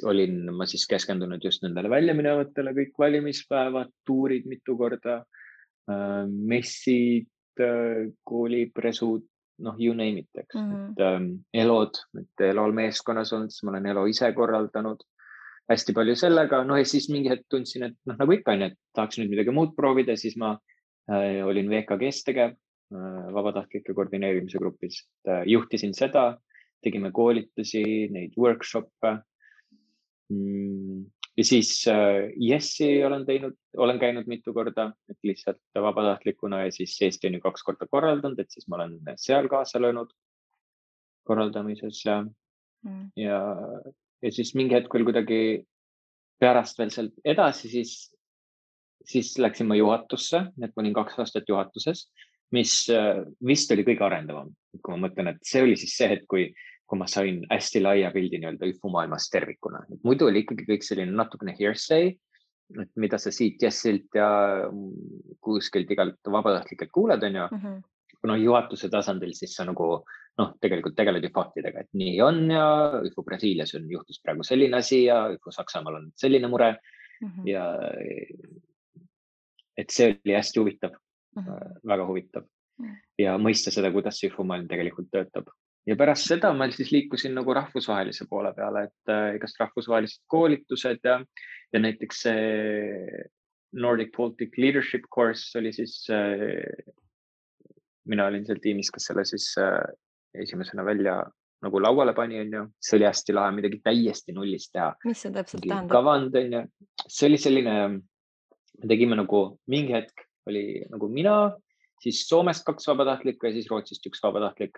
olin ma siis keskendunud just nendele väljaminevatele, kõik valimispäevad, tuurid mitu korda, messid, koolipresud, you name it, eks. ELO-d, et ELO-l meeskonnas olnud, siis ma olen ELO ise korraldanud hästi palju sellega. Ja siis mingi hetk tundsin, et nagu ikka on, et tahaks nüüd midagi muud proovida, siis ma olin VKG-s tegev vabatahtlike koordineerimise grupis. Juhtisin seda, tegime koolitusi, neid workshop'e. Ja siis Jessi olen käinud mitu korda, et lihtsalt vabatahtlikuna ja siis Eesti on ju 2 korda korraldanud, et siis ma olen seal kaasa löönud korraldamises ja siis mingi hetk veel kuidagi pärast veel sealt edasi, siis läksin ma juhatusse, et ma olin 2 aastat juhatuses, mis vist oli kõige arendavam. Kui ma mõtlen, et see oli siis see hetk, kui ma sain hästi laia pildi nii-öelda ÜFU maailmast tervikuna. Muidu oli ikkagi kõik selline natukene hearsay, et mida sa siit Jessilt ja kuskilt igalt vabatahtlikelt kuuled, on ju. Kuna juhatuse tasandil siis sa nagu tegelikult tegeled ju faktidega, et nii on ja ÜFU Brasiilias juhtus praegu selline asi ja ÜFU Saksamaal on selline mure ja et see oli hästi huvitav, väga huvitav ja mõista seda, kuidas see ÜFU maailm tegelikult töötab. Ja pärast seda ma siis liikusin nagu rahvusvahelise poole peale, et igast rahvusvahelised koolitused ja näiteks Nordic Baltic Leadership Course oli siis, mina olin seal tiimis, kes selle siis esimesena välja nagu lauale pani, on ju. See oli hästi lahe, midagi täiesti nullist teha. Mis see täpselt tähendab? Kavand, on ju. See oli selline, me tegime nagu mingi hetk oli nagu mina, siis Soomest 2 vabatahtlikku ja siis Rootsist 1 vabatahtlik.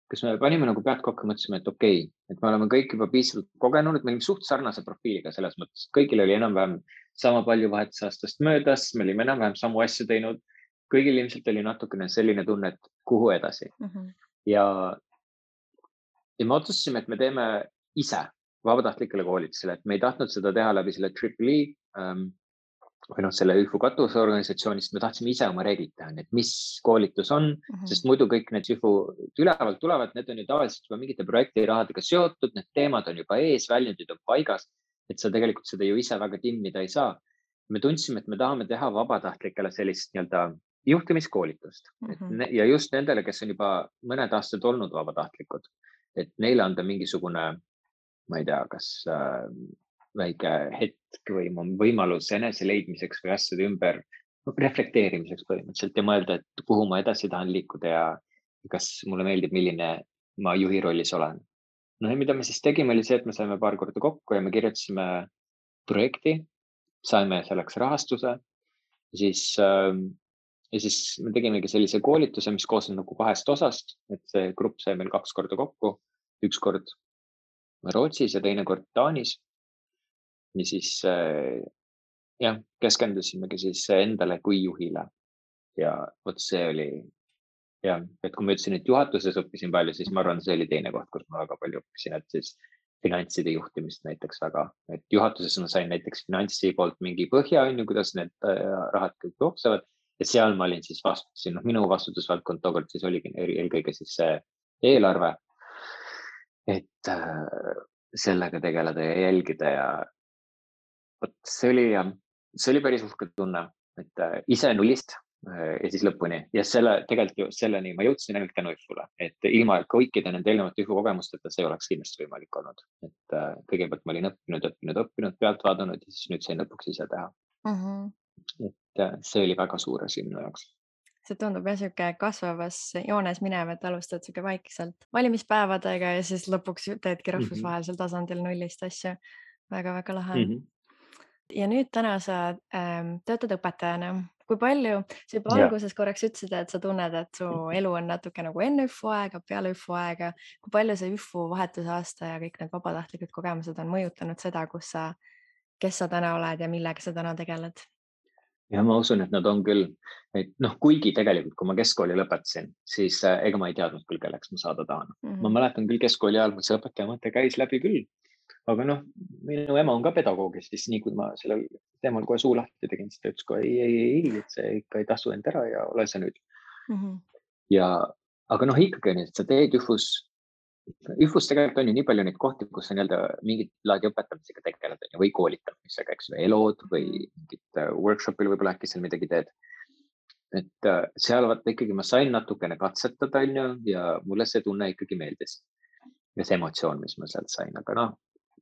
Kas me panime nagu pead kokku, mõtlesime, et okei, et me oleme kõik juba piisavalt kogenud, et me olime suht sarnase profiiliga selles mõttes. Kõigil oli enam-vähem sama palju vahetusaastast möödas, me olime enam-vähem samu asju teinud. Kõigil ilmselt oli natukene selline tunne, et kuhu edasi. Ja me otsustasime, et me teeme ise vabatahtlikele koolitusele, et me ei tahtnud seda teha läbi selle EEE või selle ÜFU katusorganisatsioonist, me tahtsime ise oma reeglid teha, et mis koolitus on, sest muidu kõik need ÜFU ülevalt tulevad, need on ju tavaliselt juba mingite projektirahadega seotud, need teemad on juba ees, väljundid on paigas, et sa tegelikult seda ju ise väga timmida ei saa. Me tundsime, et me tahame teha vabatahtlikele sellist nii-öelda juhtimiskoolitust ja just nendele, kes on juba mõned aastad olnud vabatahtlikud, et neile anda mingisugune, ma ei tea, kas väike hetk või võimalus enese leidmiseks või asjade ümber reflekteerimiseks põhimõtteliselt ja mõelda, et kuhu ma edasi tahan liikuda ja kas mulle meeldib, milline ma juhi rollis olen. No ja mida me siis tegime, oli see, et me saime paar korda kokku ja me kirjutasime projekti, saime selleks rahastuse ja siis me tegimegi sellise koolituse, mis koosneb nagu 2 osast, et see grupp sai meil 2 korda kokku, 1 kord Rootsis ja teine kord Taanis. Ja siis jah, keskendusimegi siis endale kui juhile ja vot see oli jah, et kui ma ütlesin, et juhatuses õppisin palju, siis ma arvan, see oli teine koht, kus ma väga palju õppisin, et siis finantside juhtimist näiteks väga, et juhatuses ma sain näiteks finantsi poolt mingi põhja, kuidas need rahad kõik jooksevad ja seal ma olin siis vastutasin, minu vastutusvaldkond tookord siis oligi eelkõige siis see eelarve, et sellega tegeleda ja jälgida ja vot see oli päris uhke tunne, et ise nullist ja siis lõpuni ja tegelikult ju selleni ma jõudsin ainult tänu IFU-le, et ilma kõikide nende eelnevate IFU kogemusteta see oleks kindlasti võimalik olnud, et kõigepealt ma olin õppinud, pealt vaadanud ja siis nüüd sain lõpuks ise teha. Et see oli väga suur asi minu jaoks. See tundub jah sihuke kasvavas joones minev, et alustad sihuke vaikselt valimispäevadega ja siis lõpuks teedki rahvusvahelisel tasandil nullist asju. Väga-väga lahe. Ja nüüd täna sa töötad õpetajana. Kui palju, sa juba alguses korraks ütlesid, et sa tunned, et su elu on natuke nagu enne IFU aega, peale IFU aega. Kui palju see IFU vahetusaasta ja kõik need vabatahtlikud kogemused on mõjutanud seda, kes sa täna oled ja millega sa täna tegeled? Ja ma usun, et nad on küll, et kuigi tegelikult, kui ma keskkooli lõpetasin, siis ega ma ei teadnud küll, kelleks ma saada tahan. Ma mäletan küll keskkooli ajal, see õpetaja mõte käis läbi küll, aga minu ema on ka pedagoog, siis nii kui ma sellel teemal kohe suu lahti tegin, siis ta ütles kohe ei, et see ikka ei tasu end ära ja ole sa nüüd. Aga ikkagi on, et sa teed IFUs tegelikult on ju nii palju neid kohti, kus sa mingit laadi õpetamisega tegeled või koolitamisega, eks või elood või mingit workshopil võib-olla äkki seal midagi teed. Et seal vaata ikkagi ma sain natukene katsetada ja mulle see tunne ikkagi meeldis. Ja see emotsioon, mis ma sealt sain, aga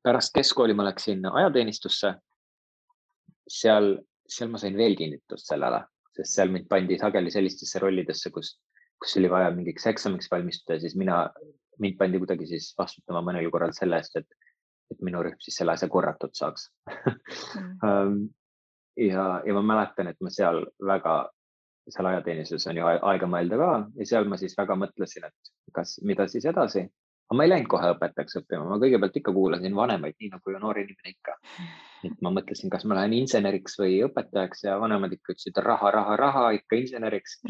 pärast keskkooli ma läksin ajateenistusse. Seal ma sain veel kinnitust sellele, sest seal mind pandi sageli sellistesse rollidesse, kus oli vaja mingiks eksamiks valmistuda ja siis mind pandi kuidagi siis vastutama mõnel korral selle eest, et minu rühm siis selle asja korratud saaks. Ja ma mäletan, et ma seal ajateenistuses on ju aega mõelda ka ja seal ma siis väga mõtlesin, et mida siis edasi. Aga ma ei läinud kohe õpetajaks õppima, ma kõigepealt ikka kuulasin vanemaid, nii nagu noor inimene ikka. Et ma mõtlesin, kas ma lähen inseneriks või õpetajaks ja vanemad ikka ütlesid raha, ikka inseneriks.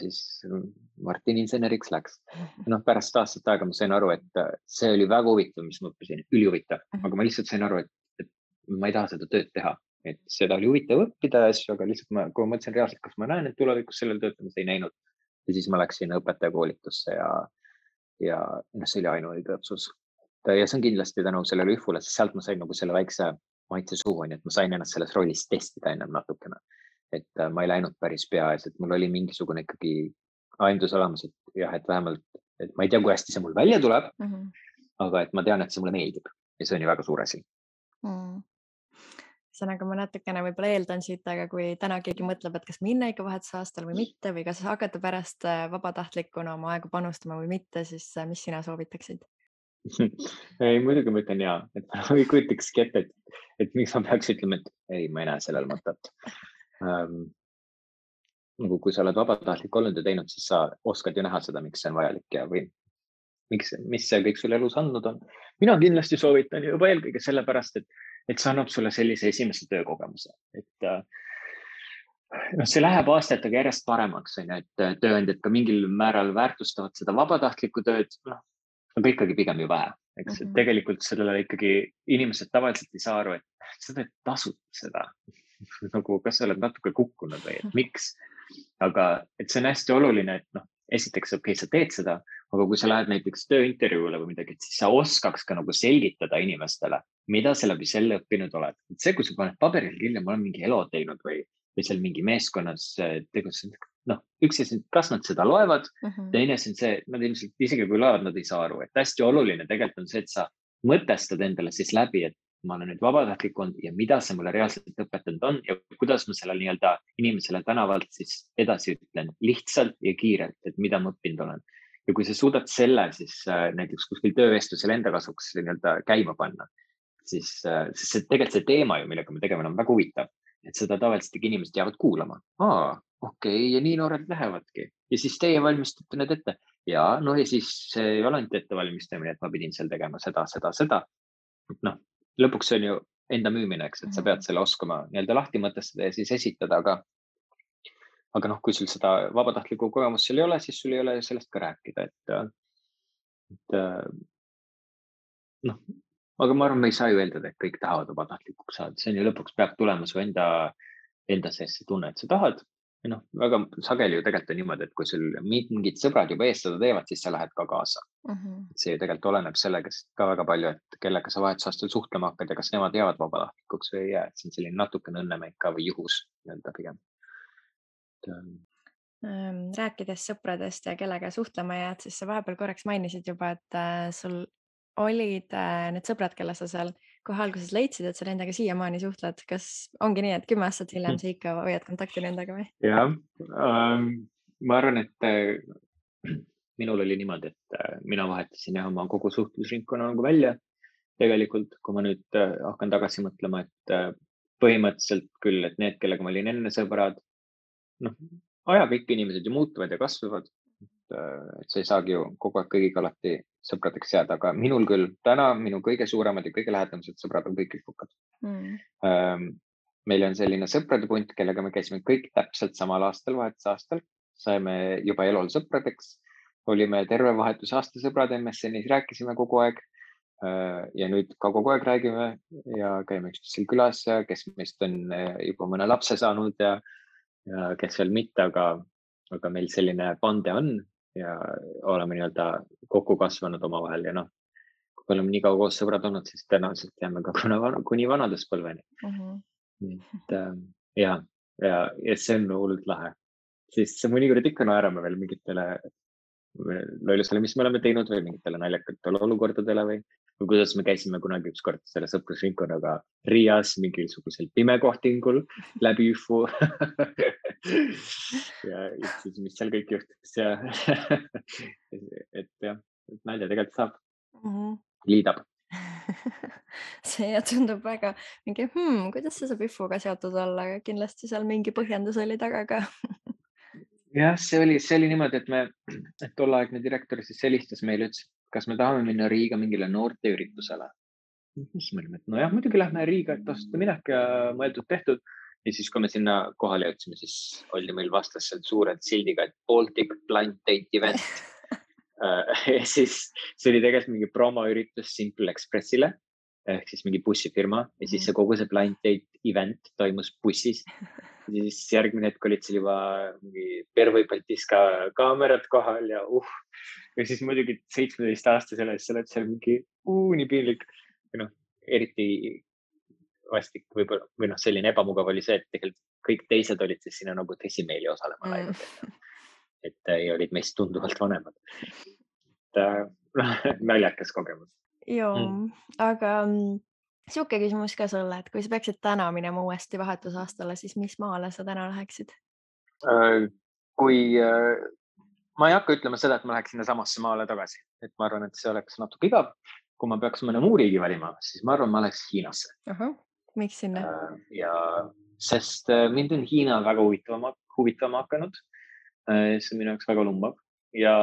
Siis Martin inseneriks läks. Pärast aastat aega ma sain aru, et see oli väga huvitav, mis ma õppisin, ülihuvitav. Aga ma lihtsalt sain aru, et ma ei taha seda tööd teha. Et seda oli huvitav õppida asju, aga lihtsalt kui ma mõtlesin reaalselt, kas ma näen, et tulevikus sellel töötamas ei näinud. Ja siis ma läksin õpetajakoolitusse ja see oli ainuõige otsus. Ja see on kindlasti tänu sellele IFU-le, sest sealt ma sain nagu selle väikse maitse suhu, et ma sain ennast selles rollis testida ennem natukene. Et ma ei läinud päris peaes, et mul oli mingisugune ikkagi aimdus olemas, et vähemalt, et ma ei tea, kui hästi see mul välja tuleb, aga et ma tean, et see mulle meeldib ja see on ju väga suur asi. Ühesõnaga ma natukene võib-olla eeldan siit, aga kui täna keegi mõtleb, et kas minna ikka vahetusaastal või mitte või kas hakata pärast vabatahtlikuna oma aega panustama või mitte, siis mis sina soovitaksid? Ei, muidugi ma ütlen jaa, et ma ei kujutakski ette, et miks ma peaks ütlema, et ei, ma ei näe sellel mõtet. Kui sa oled vabatahtlik olnud ja teinud, siis sa oskad ju näha seda, miks see on vajalik ja või mis see kõik sulle elus andnud on. Mina kindlasti soovitan juba eelkõige sellepärast, et see annab sulle sellise esimese töökogemuse. Et see läheb aastatega järjest paremaks, et tööandjad ka mingil määral väärtustavad seda vabatahtlikku tööd, aga ikkagi pigem ju vähe. Eks tegelikult sellele ikkagi inimesed tavaliselt ei saa aru, et sa teed tasuta seda. Kas sa oled natuke kukkunud või, et miks? Aga et see on hästi oluline, et esiteks okei, sa teed seda, aga kui sa lähed näiteks tööintervjuule või midagi, siis sa oskaks ka nagu selgitada inimestele, mida sa läbi selle õppinud oled. Et see, kui sa paned paberil kirja, ma olen mingi elo teinud või seal mingi meeskonnas tegutsenud, üks asi, kas nad seda loevad, teine asi on see, nad ilmselt isegi kui loevad, nad ei saa aru, et hästi oluline tegelikult on see, et sa mõtestad endale siis läbi, et ma olen nüüd vabatahtlik olnud ja mida see mulle reaalselt õpetanud on ja kuidas ma sellele nii-öelda inimesele tänavalt siis edasi ütlen lihtsalt ja kiirelt, et mida ma õppinud olen. Ja kui sa suudad selle siis näiteks kuskil töövestlusel enda kasuks nii-öelda käima panna, siis see tegelikult see teema ju, millega me tegeme, on väga huvitav, et seda tavaliselt inimesed jäävad kuulama. Okei, ja nii noored lähevadki ja siis teie valmistate need ette ja no ja siis see ei ole ainult ettevalmistamine, et ma pidin seal tegema seda. Noh, lõpuks see on ju enda müümine, eks, et sa pead selle oskama nii-öelda lahti mõtestada ja siis esitada, aga noh, kui sul seda vabatahtlikku kogemust seal ei ole, siis sul ei ole sellest ka rääkida, et noh, aga ma arvan, me ei saa ju eeldada, et kõik tahavad vabatahtlikuks saada, see on ju lõpuks peab tulema su enda sees see tunne, et sa tahad. Ja noh, väga sageli ju tegelikult on niimoodi, et kui sul mingid sõbrad juba ees seda teevad, siis sa lähed ka kaasa. See ju tegelikult oleneb sellegast ka väga palju, et kellega sa vahetusaastal suhtlema hakkad ja kas nemad jäävad vabatahtlikuks või ei jää. See on selline natukene õnnemäng ka või juhus nii-öelda pigem. Rääkides sõpradest ja kellega suhtlema jääd, siis sa vahepeal korraks mainisid juba, et sul olid need sõbrad, kelle sa seal kohe alguses leidsid, et sa nendega siiamaani suhtled. Kas ongi nii, et 10 aastat hiljem sa ikka hoiad kontakti nendega või? Jah, ma arvan, et minul oli niimoodi, et mina vahetasin oma kogu suhtlusringkonna nagu välja. Tegelikult, kui ma nüüd hakkan tagasi mõtlema, et põhimõtteliselt küll, et need, kellega ma olin enne sõbrad, noh, ajaga ikka inimesed ju muutuvad ja kasvavad. Et sa ei saagi ju kogu aeg kõigiga alati sõpradeks jääda, aga minul küll täna minu kõige suuremad ja kõige lähedamad sõbrad on kõik ühukad. Meil on selline sõprade punt, kellega me käisime kõik täpselt samal aastal, vahetusaastal. Saime juba elul sõpradeks. Olime terve vahetusaasta sõbrad MSN-is, rääkisime kogu aeg. Ja nüüd ka kogu aeg räägime ja käime üksteisel külas ja kes meist on juba mõne lapse saanud ja kes veel mitte, aga meil selline bande on ja oleme nii-öelda kokku kasvanud omavahel ja noh, kui oleme nii kaua koos sõbrad olnud, siis tõenäoliselt jääme ka kuni vanaduspõlveni. Ja see on hullult lahe. Siis mõnikord ikka naerame veel mingitele lollusele, mis me oleme teinud või mingitele naljakatele olukordadele või kuidas me käisime kunagi ükskord selle sõprusringkonnaga Riias mingisugusel pimekohtingul läbi üfu. Ja siis, mis seal kõik juhtus ja et jah, nalja tegelikult saab, liidab. See tundub väga mingi, kuidas see saab üfuga seotud olla, aga kindlasti seal mingi põhjendus oli taga ka. Jah, see oli niimoodi, et tolleaegne direktor siis helistas meile, ütles, kas me tahame minna Riiga mingile noorteüritusele. Siis me olime, et nojah, muidugi lähme Riiga, et tasuta minek ja mõeldud tehtud. Ja siis, kui me sinna kohale jõudsime, siis oli meil vastas seal suured sildiga, et Baltic Blind Date Event. Ja siis see oli tegelikult mingi promoüritus Simple Expressile ehk siis mingi bussifirma ja siis see kogu see Blind Date Event toimus bussis. Ja siis järgmine hetk olid seal juba mingi Pervõi Baltiska kaamerad kohal ja ja siis muidugi 17-aastasele sa oled seal mingi nii piinlik. Noh, eriti vastik võib-olla, või selline ebamugav oli see, et tegelikult kõik teised olid siis sinna nagu tõsimeeli osalema läinud. Et olid meist tunduvalt vanemad. Naljakas kogemus. Joo, aga siuke küsimus ka sulle, et kui sa peaksid täna minema uuesti vahetusaastale, siis mis maale sa täna läheksid? Ma ei hakka ütlema seda, et ma läheks sinna samasse maale tagasi. Et ma arvan, et see oleks natuke igav. Kui ma peaks mõne muu riigi valima, siis ma arvan, ma läheks Hiinasse. Miks sinna? Sest mind on Hiina väga huvitama hakanud. See on minu jaoks väga lumbav. Ja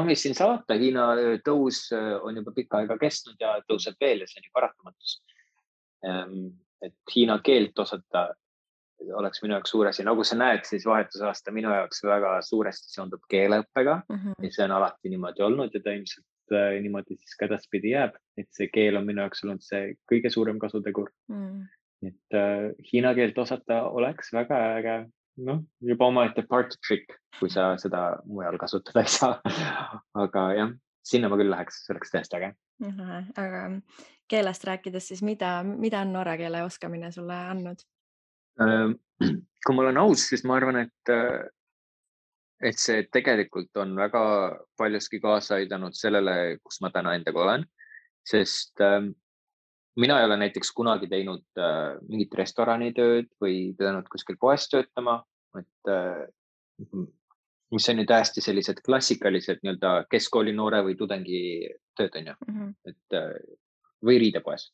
mis siin saata, Hiina tõus on juba pikka aega kestnud ja tõuseb veel ja see on ju paratamatus. Et Hiina keelt osata oleks minu jaoks suur asi. Nagu sa näed, siis vahetusaasta minu jaoks väga suuresti seondub keeleõppega ja see on alati niimoodi olnud ja ta ilmselt niimoodi siis ka edaspidi jääb. Et see keel on minu jaoks olnud see kõige suurem kasutegur. Et Hiina keelt osata oleks väga äge. Juba omaette party trick, kui sa seda mujal kasutada ei saa. Aga jah, sinna ma küll läheks, see oleks täiesti äge. Aga keelest rääkides, siis mida on norra keele oskamine sulle andnud? Kui ma olen aus, siis ma arvan, et see tegelikult on väga paljuski kaasa aidanud sellele, kus ma täna endaga olen. Sest mina ei ole näiteks kunagi teinud mingit restoranitööd või pidanud kuskil poes töötama, mis on ju täiesti sellised klassikalised nii-öelda keskkooli noore või tudengi tööd on ju, et või riidepoes.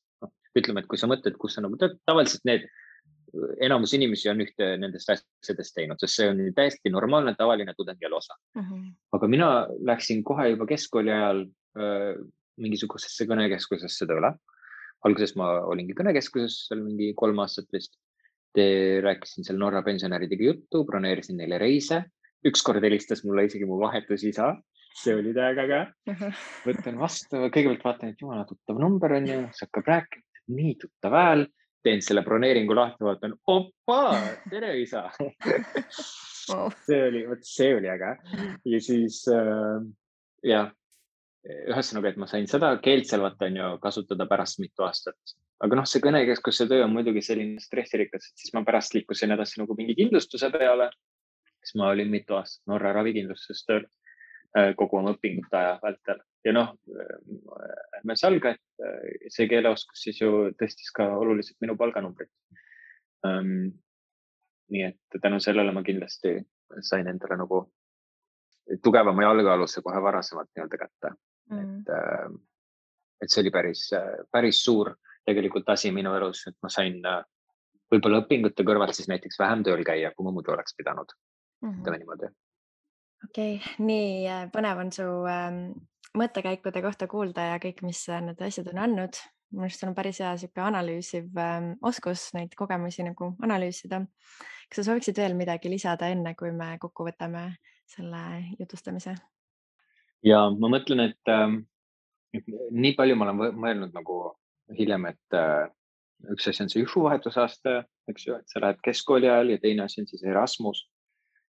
Ütleme, et kui sa mõtled, kus sa nagu tavaliselt enamus inimesi on ühte nendest asjadest teinud, sest see on täiesti normaalne, tavaline tudengielu osa. Aga mina läksin kohe juba keskkooli ajal mingisugusesse kõnekeskusesse tööle. Alguses ma olingi kõnekeskuses seal mingi 3 aastat vist. Rääkisin seal Norra pensionäridega juttu, broneerisin neile reise. Ükskord helistas mulle isegi mu vahetusisa. See oli täiega äge. Võtan vastu, kõigepealt vaatan, et jumala tuttav number on ju, see hakkab rääkima, nii tuttav hääl. Teen selle broneeringu lahti, vaatan, opa, tere isa. See oli äge. Ja siis, ühesõnaga, et ma sain seda keelt seal on ju kasutada pärast mitu aastat. Aga see kõnekeskuse töö on muidugi selline stressirikas, et siis ma pärast liikusin edasi nagu mingi kindlustuse peale. Siis ma olin mitu aastat Norra ravikindlustuses tööl kogu oma õpingute aja vältel. Ja ärme salga, et see keeleoskus siis ju tõstis ka oluliselt minu palganumbrit. Nii et tänu sellele ma kindlasti sain endale nagu tugevama jalgealusse kohe varasemalt nii-öelda kätte. Et see oli päris suur tegelikult asi minu elus, et ma sain võib-olla õpingute kõrvalt siis näiteks vähem tööl käia, kui ma muidu oleks pidanud. Ütleme niimoodi. Okei, nii põnev on su mõttekäikude kohta kuulda ja kõik, mis need asjad on andnud. Minu arust on päris hea siuke analüüsiv oskus neid kogemusi nagu analüüsida. Kas sa sooviksid veel midagi lisada enne, kui me kokku võtame selle jutustamise? Ja ma mõtlen, et nii palju ma olen mõelnud nagu hiljem, et üks asi on see UFU vahetusaasta, eks ju, et sa lähed keskkooli ajal ja teine asi on siis Erasmus.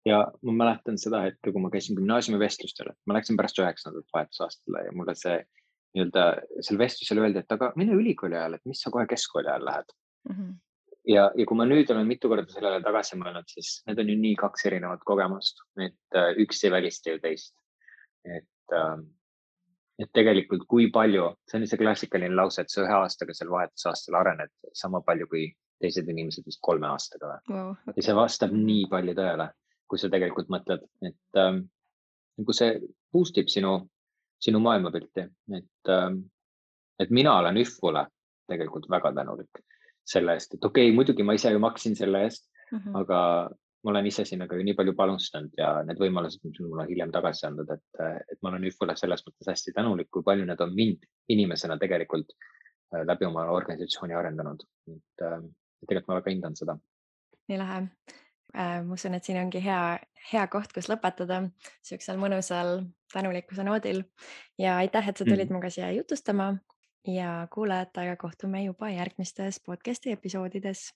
Ja ma mäletan seda hetke, kui ma käisin gümnaasiumi vestlustel, ma läksin pärast 9. vahetusaastale ja mulle see nii-öelda seal vestlusel öeldi, et aga mine ülikooli ajal, et mis sa kohe keskkooli ajal lähed. Ja kui ma nüüd olen mitu korda sellele tagasi mõelnud, siis need on ju nii 2 erinevat kogemust, et üks ei välista ju teist. Et tegelikult kui palju, see on see klassikaline lause, et sa 1 aastaga seal vahetusaastal arened sama palju kui teised inimesed vist 3 aastaga. Wow, okay. Ja see vastab nii palju tõele, kui sa tegelikult mõtled, et kui see boostib sinu maailmapilti, et mina olen ühvule tegelikult väga tänulik selle eest, et okei, muidugi ma ise ju maksin selle eest, aga ma olen ise sinna ka nii palju panustanud ja need võimalused, mis mulle hiljem tagasi andnud, et ma olen ühvule selles mõttes hästi tänulik, kui palju need on mind inimesena tegelikult läbi oma organisatsiooni arendanud. Tegelikult ma väga hindan seda. Nii lähe. Ma usun, et siin ongi hea koht, kus lõpetada siuksel mõnusal tänulikkuse noodil. Ja aitäh, et sa tulid muga siia jutustama ja kuulajatega kohtume juba järgmistes podcasti episoodides.